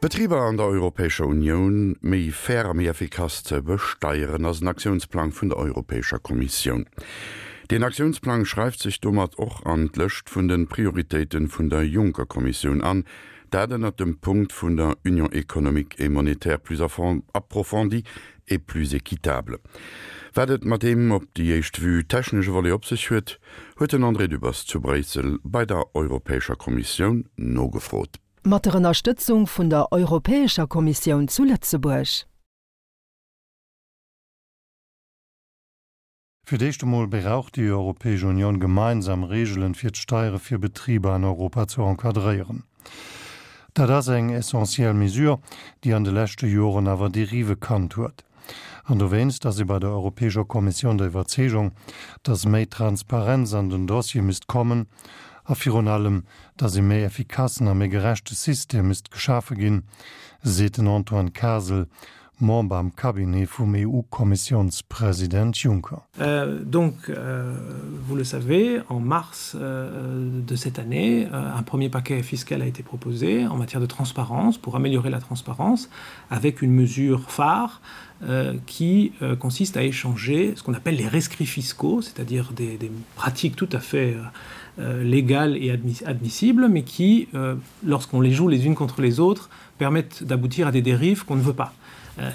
D'Betriber an der Europäescher Unioun méi fair a méi effikass ze besteieren, ass en Aktiounsplang vun der Europäescher Kommissioun. Deen Aktiounsplang schreift sech domat och an d'Lëscht vun de Prioritéite vun der Juncker-Kommissioun an, dat ënnert dem Punkt vun der Union économique et monétaire plus approfondie et plus équitable. Wat et mat deem op déi éischt Vue technesche Volet op sech huet, huet den André Dübbers zu Bréissel bei der Europäescher Kommissioun nogefrot. Mat der Ënnerstëtzung vun der Europäescher Kommissioun zu Lëtzebuerg. Fir d'éischt emol brauch déi Europäesch Unioun gemeinsam Reegelen, fir d'Steiere fir Betriber an Europa ze encadréieren. Dat ass eng essentiell Mesure, déi an de leschte Joren awer Derive kannt huet. An dowéinst ass ee bei der Europäescher Kommissioun der Iwwerzeegung, datt méi Transparenz an den Dossier misst kommen a virun allem, datt ee méi effikassen a méi gerechte System misst geschafe ginn, seet den Antoine Kasel, Member am Cabinet vum EU-Kommissiounspresident Juncker. Donc, vous le savez, en mars de cette année, un premier paquet fiscal a été proposé en matière de transparence pour améliorer la transparence avec une mesure phare qui consiste à échanger ce qu'on appelle les rescrits fiscaux, c'est-à-dire des, des pratiques tout à fait légales et admissibles, mais qui, lorsqu'on les joue les unes contre les autres, permettent d'aboutir à des dérives qu'on ne veut pas.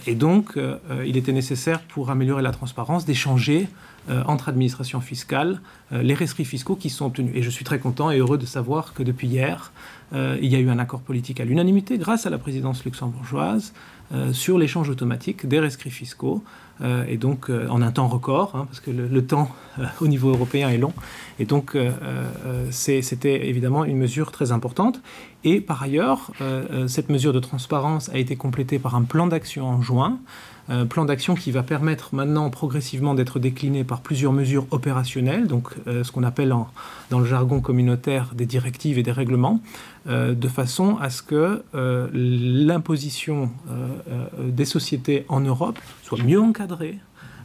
Et donc, il était nécessaire pour améliorer la transparence d'échanger entre administrations fiscales les rescrits fiscaux qui sont obtenus. Et je suis très content et heureux de savoir que depuis hier, il y a eu un accord politique à l'unanimité grâce à la présidence luxembourgeoise sur l'échange automatique des rescrits fiscaux et donc en un temps record hein, parce que le, le temps au niveau européen est long et donc c'était évidemment une mesure très importante et par ailleurs cette mesure de transparence a été complétée par un plan d'action en juin plan d'action qui va permettre maintenant progressivement d'être décliné par plusieurs mesures opérationnelles donc ce qu'on appelle en, dans le jargon communautaire des directives et des règlements de façon à ce que l'imposition des sociétés en Europe soit mieux encadrée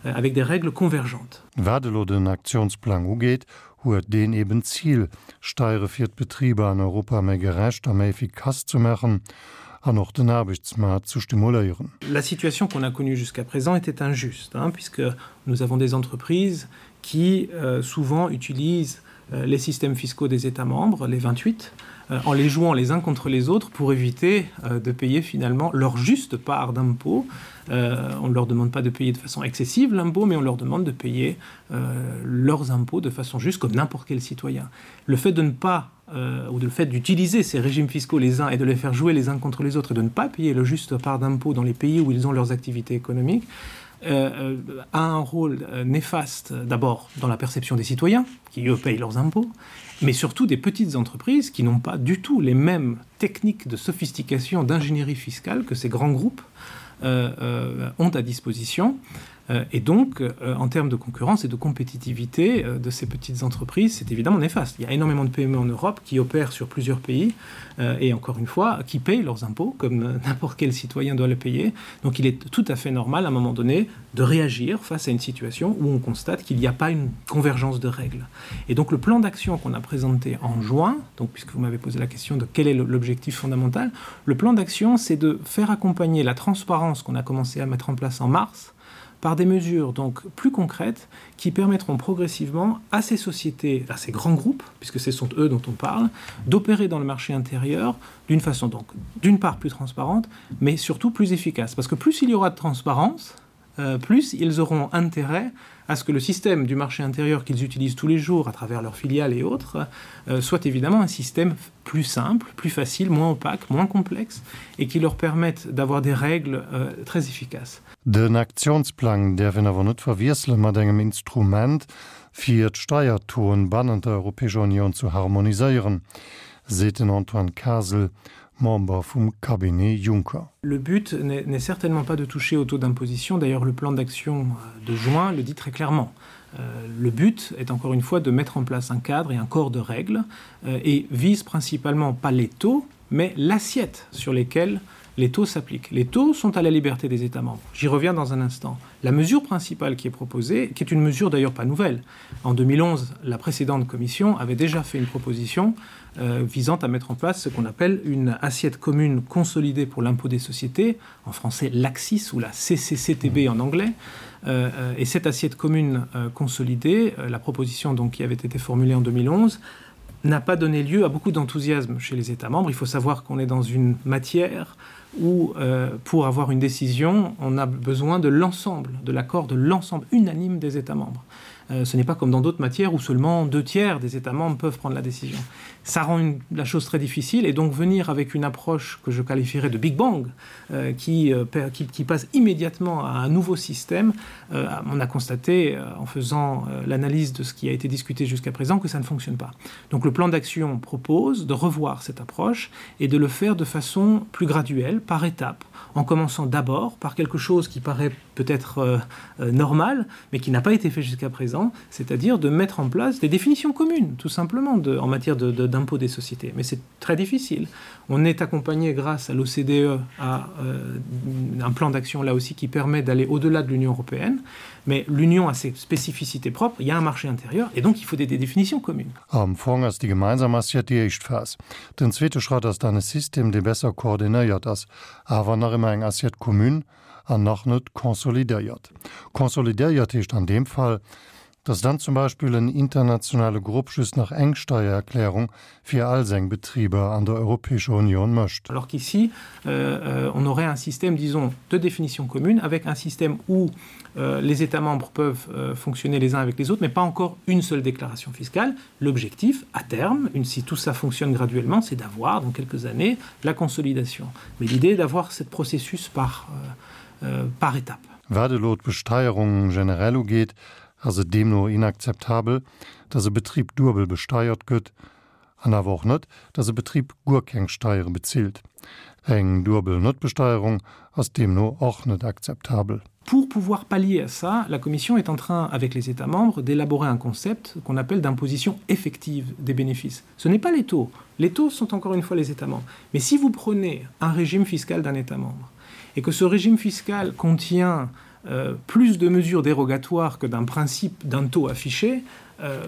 avec des règles convergentes. Wat elo den Aktiounsplang ugeet, huet deen eben d'Zil, Steiere fir d'Betriber an Europa méi gerecht a méi effikass ze maachen an och den Aarbechtsmaart ze stimuléieren. La situation qu'on a connue jusqu'à présent était injuste, hein, puisque nous avons des entreprises qui euh, souvent utilisent euh, les systèmes fiscaux des États membres, les 28, euh, en les jouant les uns contre les autres pour éviter euh, de payer finalement leur juste part d'impôt. Euh, on ne leur demande pas de payer de façon excessive l'impôt, mais on leur demande de payer euh, leurs impôts de façon juste comme n'importe quel citoyen. Le fait de ne pas euh, ou de le fait d'utiliser ces régimes fiscaux les uns et de les faire jouer les uns contre les autres et de ne pas payer le juste part d'impôt dans les pays où ils ont leurs activités économiques, euh, euh, a un rôle euh, néfaste d'abord dans la perception des citoyens qui eux payent leurs impôts, mais surtout des petites entreprises qui n'ont pas du tout les mêmes techniques de sophistication d'ingénierie fiscale que ces grands groupes euh, euh, ont à disposition. Euh, et donc, euh, en termes de concurrence et de compétitivité euh, de ces petites entreprises, c'est évidemment néfaste. Il y a énormément de PME en Europe qui opèrent sur plusieurs pays et encore une fois, qui payent leurs impôts comme n'importe quel citoyen doit le payer. Donc il est tout à fait normal à un moment donné de réagir face à une situation où on constate qu'il n'y a pas une convergence de règles. Et donc le plan d'action qu'on a présenté en juin, donc puisque vous m'avez posé la question de quel est l'objectif fondamental, le plan d'action c'est de faire accompagner la transparence qu'on a commencé à mettre en place en mars, par des mesures donc plus concrètes qui permettront progressivement à ces sociétés, à ces grands groupes, puisque ce sont eux dont on parle, d'opérer dans le marché intérieur d'une façon donc d'une part plus transparente, mais surtout plus efficace. Parce que plus il y aura de transparence, euh, plus ils auront intérêt à ce que le système du marché intérieur qu'ils utilisent tous les jours à travers leurs filiales et autres euh, soit évidemment un système plus simple, plus facile, moins opaque, moins complexe et qui leur permette d'avoir des règles euh, très efficaces. Den Aktiounsplang däerf een awer net verwiessele mat engem Instrument, fir d'Steiertauxen bannent der Europäescher Unioun zu harmoniséieren, seet den Antoine Kasel, Member vum Cabinet Juncker. Le but n'est certainement pas de toucher au taux d'imposition. D'ailleurs, le plan d'action de juin le dit très clairement. Euh, le but est encore une fois de mettre en place un cadre et un corps de règles euh, et vise principalement pas les taux, mais l'assiette sur lesquels les. Les taux s'appliquent. Les taux sont à la liberté des États membres. J'y reviens dans un instant. La mesure principale qui est proposée, qui est une mesure d'ailleurs pas nouvelle, en 2011, la précédente commission avait déjà fait une proposition euh, visant à mettre en place ce qu'on appelle une assiette commune consolidée pour l'impôt des sociétés, en français l'AXIS ou la CCCTB en anglais. Euh, euh, et cette assiette commune euh, consolidée, euh, la proposition donc, qui avait été formulée en 2011, n'a pas donné lieu à beaucoup d'enthousiasme chez les États membres. Il faut savoir qu'on est dans une matière où, euh, pour avoir une décision, on a besoin de l'ensemble, de l'accord de l'ensemble unanime des États membres. Euh, ce n'est pas comme dans d'autres matières où seulement deux tiers des États membres peuvent prendre la décision. Ça rend une, la chose très difficile et donc venir avec une approche que je qualifierais de Big Bang euh, qui, euh, qui, qui passe immédiatement à un nouveau système, euh, on a constaté euh, en faisant euh, l'analyse de ce qui a été discuté jusqu'à présent que ça ne fonctionne pas. Donc le plan d'action propose de revoir cette approche et de le faire de façon plus graduelle, par étapes, en commençant d'abord par quelque chose qui paraît peut-être euh, euh, normal, mais qui n'a pas été fait jusqu'à présent, c'est-à-dire de mettre en place des définitions communes, tout simplement, de, en matière d'impôt de, de, des sociétés. Mais c'est très difficile. On est accompagné grâce à l'OCDE à euh, un plan d'action là aussi qui permet d'aller au-delà de l'Union européenne, mais l'Union a ses spécificités propres, il y a un marché intérieur et donc il faut des, des définitions communes. Am Fong ass déi gemeinsam Assiette déi éischt Phas. Den zweete Schratt ass dann e System, dee besser koordinéiert ass, awer nach ëmmer eng Assiette commune an nach net consolidéiert. Consolidéiert heescht an deem Fall, dass dann zum Beispill en internationale Grupp just nach eng Steiererklärung fir all seng Betriber an der Europäescher Union mécht. Alors qu'ici, euh, euh, on aurait un système, disons, de définition commune avec un système où euh, les États membres peuvent euh, fonctionner les uns avec les autres, mais pas encore une seule déclaration fiscale. L'objectif, à terme, une, si tout ça fonctionne graduellement, c'est d'avoir, dans quelques années, la consolidation. Mais l'idée est d'avoir ce processus par, euh, euh, par étape. Wat elo d'Besteierung generell ugeet, ass et deemno inakzeptabel, datt e Betrib duebel besteiert gëtt, an awer och net, datt e Betrib guer keng Steiere bezilt. Eng duebel Netbesteierung ass deemno och net akzeptabel. Pour pouvoir pallier à ça, la Commission est en train, avec les États membres, d'élaborer un concept qu'on appelle d'imposition effective des bénéfices. Ce n'est pas les taux. Les taux sont encore une fois les États membres. Mais si vous prenez un régime fiscal d'un État membre et que ce régime fiscal contient euh, plus de mesures dérogatoires que d'un principe d'un taux affiché, euh,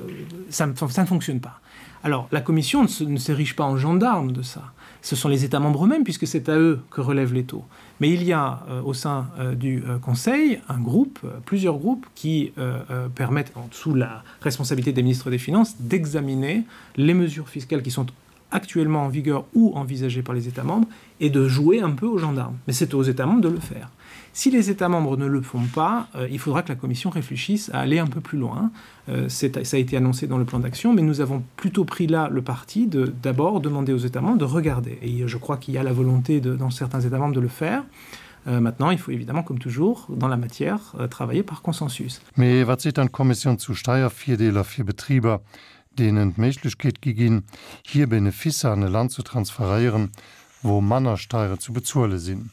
ça, ça ne fonctionne pas. Alors la Commission ne s'érige pas en gendarme de ça. Ce sont les États membres eux-mêmes puisque c'est à eux que relèvent les taux. Mais il y a euh, au sein euh, du euh, Conseil un groupe, euh, plusieurs groupes qui euh, euh, permettent, en dessous la responsabilité des ministres des Finances, d'examiner les mesures fiscales qui sont actuellement en vigueur ou envisagées par les États membres et de jouer un peu aux gendarmes. Mais c'est aux États membres de le faire. Si les États membres ne le font pas, euh, il faudra que la Commission réfléchisse à aller un peu plus loin. Euh, ça a été annoncé dans le plan d'action, mais nous avons plutôt pris là le parti de d'abord demander aux États membres de regarder. Et je crois qu'il y a la volonté de, dans certains États membres de le faire. Euh, maintenant, il faut évidemment, comme toujours, dans la matière, euh, travailler par consensus. Mais wat seet dann d'Kommissioun zu Steiervirdeeler fir Betriber, deenen d'Méiglechkeet gi ginn, hir Beneficer an e Land ze transferéieren, wou manner Steiere zu bezuele sinn?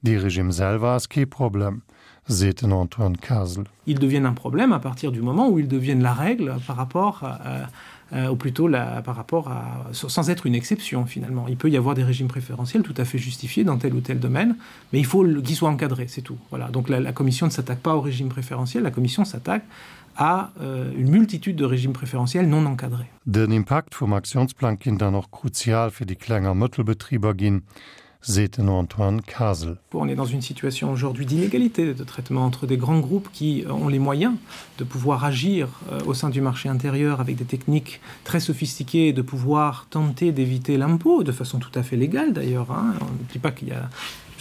Dee Regime selwer ass kee Problem, seet den Antoine Kasel. Ils deviennent un problème à partir du moment où ils deviennent la règle par rapport à, euh, ou plutôt la, par rapport à sans être une exception finalement. Il peut y avoir des régimes préférentiels tout à fait justifiés dans tel ou tel domaine, mais il faut qu'ils soient encadrés, c'est tout. Voilà. Donc la, la commission ne s'attaque pas au régime préférentiel, la commission s'attaque à euh, une multitude de régimes préférentiels non encadrés. Den Impakt vum Aktiounsplang kinnt dann och kruzial fir déi Kleng a Mëttelbetriber ginn, seet den Antoine Kasel. On est dans une situation aujourd'hui d'inégalité de traitement entre des grands groupes qui euh, ont les moyens de pouvoir agir euh, au sein du marché intérieur avec des techniques très sophistiquées et de pouvoir tenter d'éviter l'impôt de façon tout à fait légale d'ailleurs. On ne dit pas qu'il y a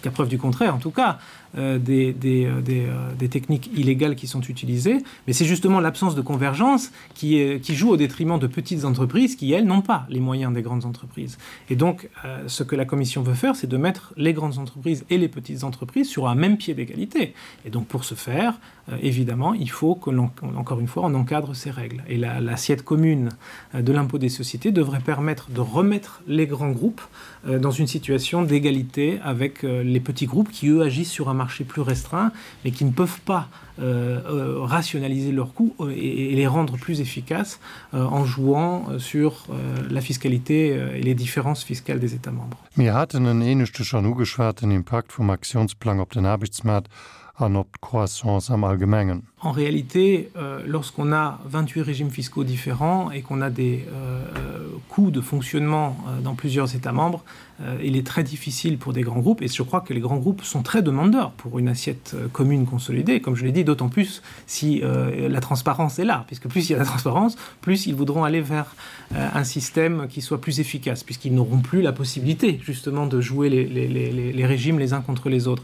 jusqu'à preuve du contraire en tout cas, euh, des, des, euh, des, euh, des techniques illégales qui sont utilisées, mais c'est justement l'absence de convergence qui, est, qui joue au détriment de petites entreprises qui, elles, n'ont pas les moyens des grandes entreprises. Et donc, euh, ce que la Commission veut faire, c'est de mettre les grandes entreprises et les petites entreprises sur un même pied d'égalité. Et donc, pour ce faire, euh, évidemment, il faut que l'on, encore une fois, on encadre ces règles. Et l'assiette la, commune euh, de l'impôt des sociétés devrait permettre de remettre les grands groupes euh, dans une situation d'égalité avec euh, les petits groupes qui eux agissent sur un marché plus restreint mais qui ne peuvent pas euh, euh, rationaliser leurs coûts euh, et, et les rendre plus efficaces euh, en jouant euh, sur euh, la fiscalité euh, et les différences fiscales des États membres. Mir haten en éineschte schonn ugeschwat, den Impakt vum Aktiounsplang op den Aarbechtsmaart an op d'Croissance am Allgemengen. En réalité, euh, lorsqu'on a 28 régimes fiscaux différents et qu'on a des euh, euh, coûts de fonctionnement euh, dans plusieurs États membres, euh, il est très difficile pour des grands groupes et je crois que les grands groupes sont très demandeurs pour une assiette euh, commune consolidée, comme je l'ai dit, d'autant plus si euh, la transparence est là, puisque plus il y a la transparence, plus ils voudront aller vers euh, un système qui soit plus efficace, puisqu'ils n'auront plus la possibilité justement de jouer les, les, les, les régimes les uns contre les autres.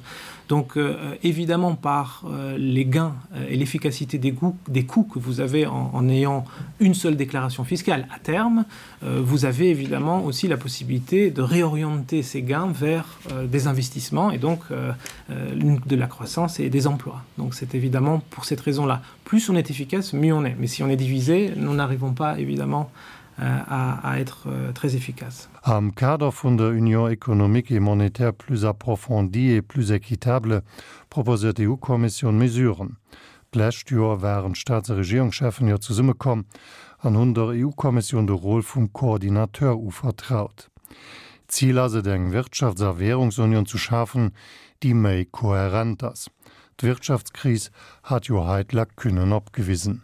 Donc euh, évidemment par euh, les gains euh, et l'efficacité des, des coûts que vous avez en, en ayant une seule déclaration fiscale à terme, euh, vous avez évidemment aussi la possibilité de réorienter ces gains vers euh, des investissements et donc euh, euh, de la croissance et des emplois. Donc c'est évidemment pour cette raison-là. Plus on est efficace, mieux on est. Mais si on est divisé, nous n'arrivons pas évidemment euh, à, à être euh, très efficace. Am Kader vun der Union économique et monétaire plus approfondie et plus équitable proposéiert d'EU-Kommissioun Mesuren. D'lescht Joer waren d'Staats a Regierungscheffen jo zesummekomm an hunn der EU-Kommissioun de Rôle vum Coordinateur uvertraut. Zil ass et, eng Wirtschafts a Währungsunion zu schafen, déi méi kohärent ass. D'Wirtschaftskris hat jo hei d'Lacunnen opgewisen.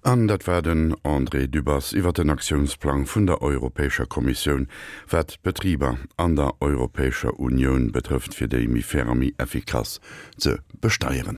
An dat war den André Dübbers iwwer den Aktiounsplang vun der Europäescher Kommissioun, wat d'Betriber an der Europäescher Unioun betrëfft, fir déi méi fair a méi effikass ze besteieren.